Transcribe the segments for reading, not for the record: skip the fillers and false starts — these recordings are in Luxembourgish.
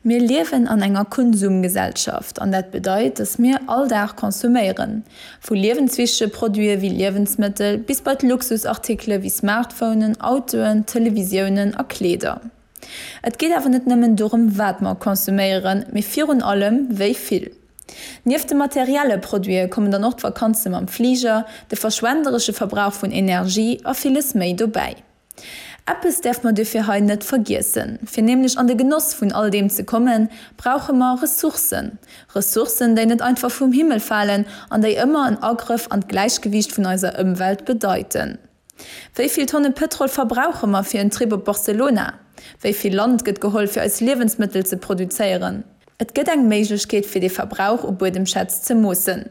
Mir liewen an enger Konsumgesellschaft an dat bedeit, dass mir all Dag konsuméieren. Vu liewenswichtege Produite wéi Liewensmëttel bis bei d'Luxusartikele wéi Smartphonen, Autoen, Televisiounen a Kleeder. Et geet awer net nëmmen dorëm wat mer konsuméieren, mee virun allem wéi vill. Nieft de materielle Produite kommen dann och d'Vakanze mam Fliger, de verschwenderesche Verbrauch vun Energie a villes méi dobäi. Eppes däerf mer duerfir hei net vergiessen, Fir nämlech an de Genoss vun all deem ze kommen, brauche mer Ressourcen. Ressourcen, déi net einfach vum Himmel falen an déi ëmmer en Agrëff an d'Gläichgewiicht vun eiser Ëmwelt bedeiten. Wéi vill Tonne Pëtrol verbrauche mer fir en Trip op Barcelona? Wéi vill Land gëtt geholl fir eis Liewensmëttel ze produzéieren? Et gëtt eng Méiglechkeet fir dee Verbrauch u Buedemschätz ze moossen.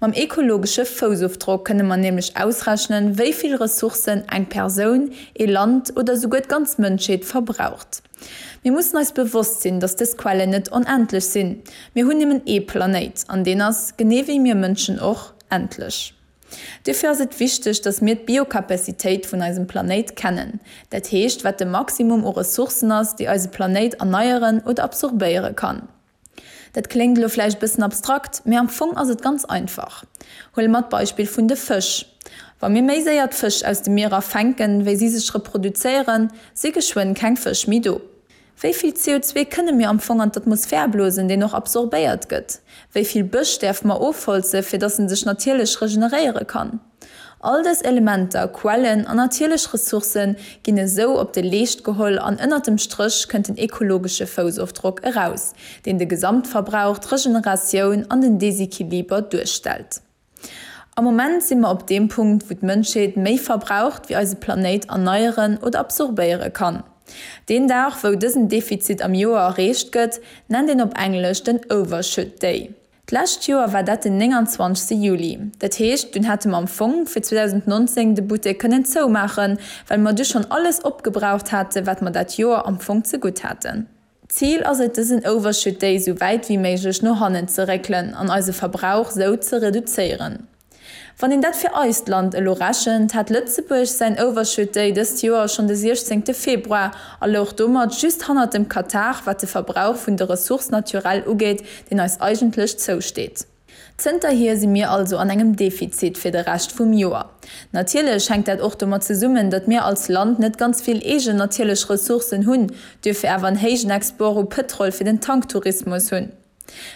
Mam ekologesche Foussofdrock kënne mer nämlech ausrechnen, wéi vill Ressourcen eng Persoun, ee Land oder souguer d'ganz Mënschheet verbraucht. Mir mussen eis bewosst sinn, datt dës Quellen net onendlech sinn. Mir hunn nëmmen ee Planéit an deen ass, genee wéi mir Mënschen och, endlech. Duerfir ass et wichteg, dass mir d'Biocapacitéit vun eisem Planéit kennen, dat heescht wat de Maximum u Ressourcen ass, déi eise Planéit erneieren oder absorbéiere kann. Dat kléngt elo vläicht bëssen abstrakt, mee am Fong ass et ganz einfach. Huele mer d'Beispill vun de Fësch. Wa mir méi séier d'Fësch aus de Mierer fänken, wéi si sech reproduzéieren, si geschwënn keng Fësch méi do. Wéi vill CO2 kënne mir am Fong an d'Atmosphär blosen, deen och absorbéiert gëtt? Wéi vill Bësch däerfe mer ofholze fir datt en sech natierlech regeneréiere kann? All dës Elementer, Quellen an natierlech Ressourcë ginn esou op de Leescht geholl an ënnert dem Stréch kënnt den ekologesche Foussofdrock eraus, deen de Gesamtverbrauch, d'Regeneratioun an den Desequiliber duerstellt. Am Moment si mer op deem Punkt, wou d'Mënschheet méi verbraucht, wéi eise Planéit erneieren oder absorbéiere kann. Deen Dag, wou dësen Defizit am Joer erreecht gëtt, nennt een op Englesch den Overshoot Day. D'lescht Joer war dat den 29 Juli. Dat heescht, dunn hätte mer am Fong fir 2019 de Buttek kënnen zoumaachen, well mer du schonn alles opgebraucht hate wat mer dat Joer am Fong zegutt haten. Zil ass et dësen Overshoot Day sou wäit wéi méiglech no hannen ze réckelen an eise Verbrauch sou ze reduzéieren. Wann een dat fir eist Land elo rechent, hat Lëtzebuerg säin Overshoot Day dëst Joer schonn de 16 Februar a louch domat just hannert dem Katar wat de Verbrauch vun de Ressources naturelles ugeet, deen eis eigentlech zousteet. Zënterhier si mir also an engem Defizit fir de Rescht vum Joer. Natierlech hänkt dat och domat zesummen, datt mir als Land net ganz vill eegen natierlech Ressourcen hunn, duerfir awer en héijen Export u Pëtrol fir den Tanktourismus hunn.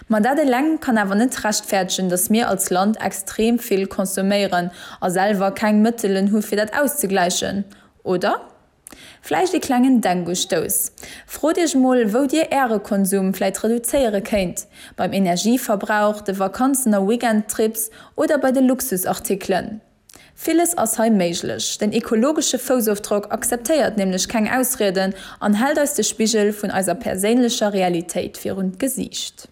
Ma dat eleng kann awer net rechtfäerdegen, datt mir als Land extrem vill consomméieren a selwer keng Mëttelen hu fir dat auszegläichen, oder? Vläicht ee klengen Denkustouss. Frot iech mol, wou dir äre Konsum vläit reduzéiere kéint, beim Energieverbrauch, de Vakanzen a Weekendtrips oder bei de Luxusartikelen. Villes ass hei méiglech. Den ekologesche Foussofdrock akzeptéiert nämlech keng Ausrieden an hält eis de Spigel vun eiser perséinlecher Realitéit virun d'Gesiicht.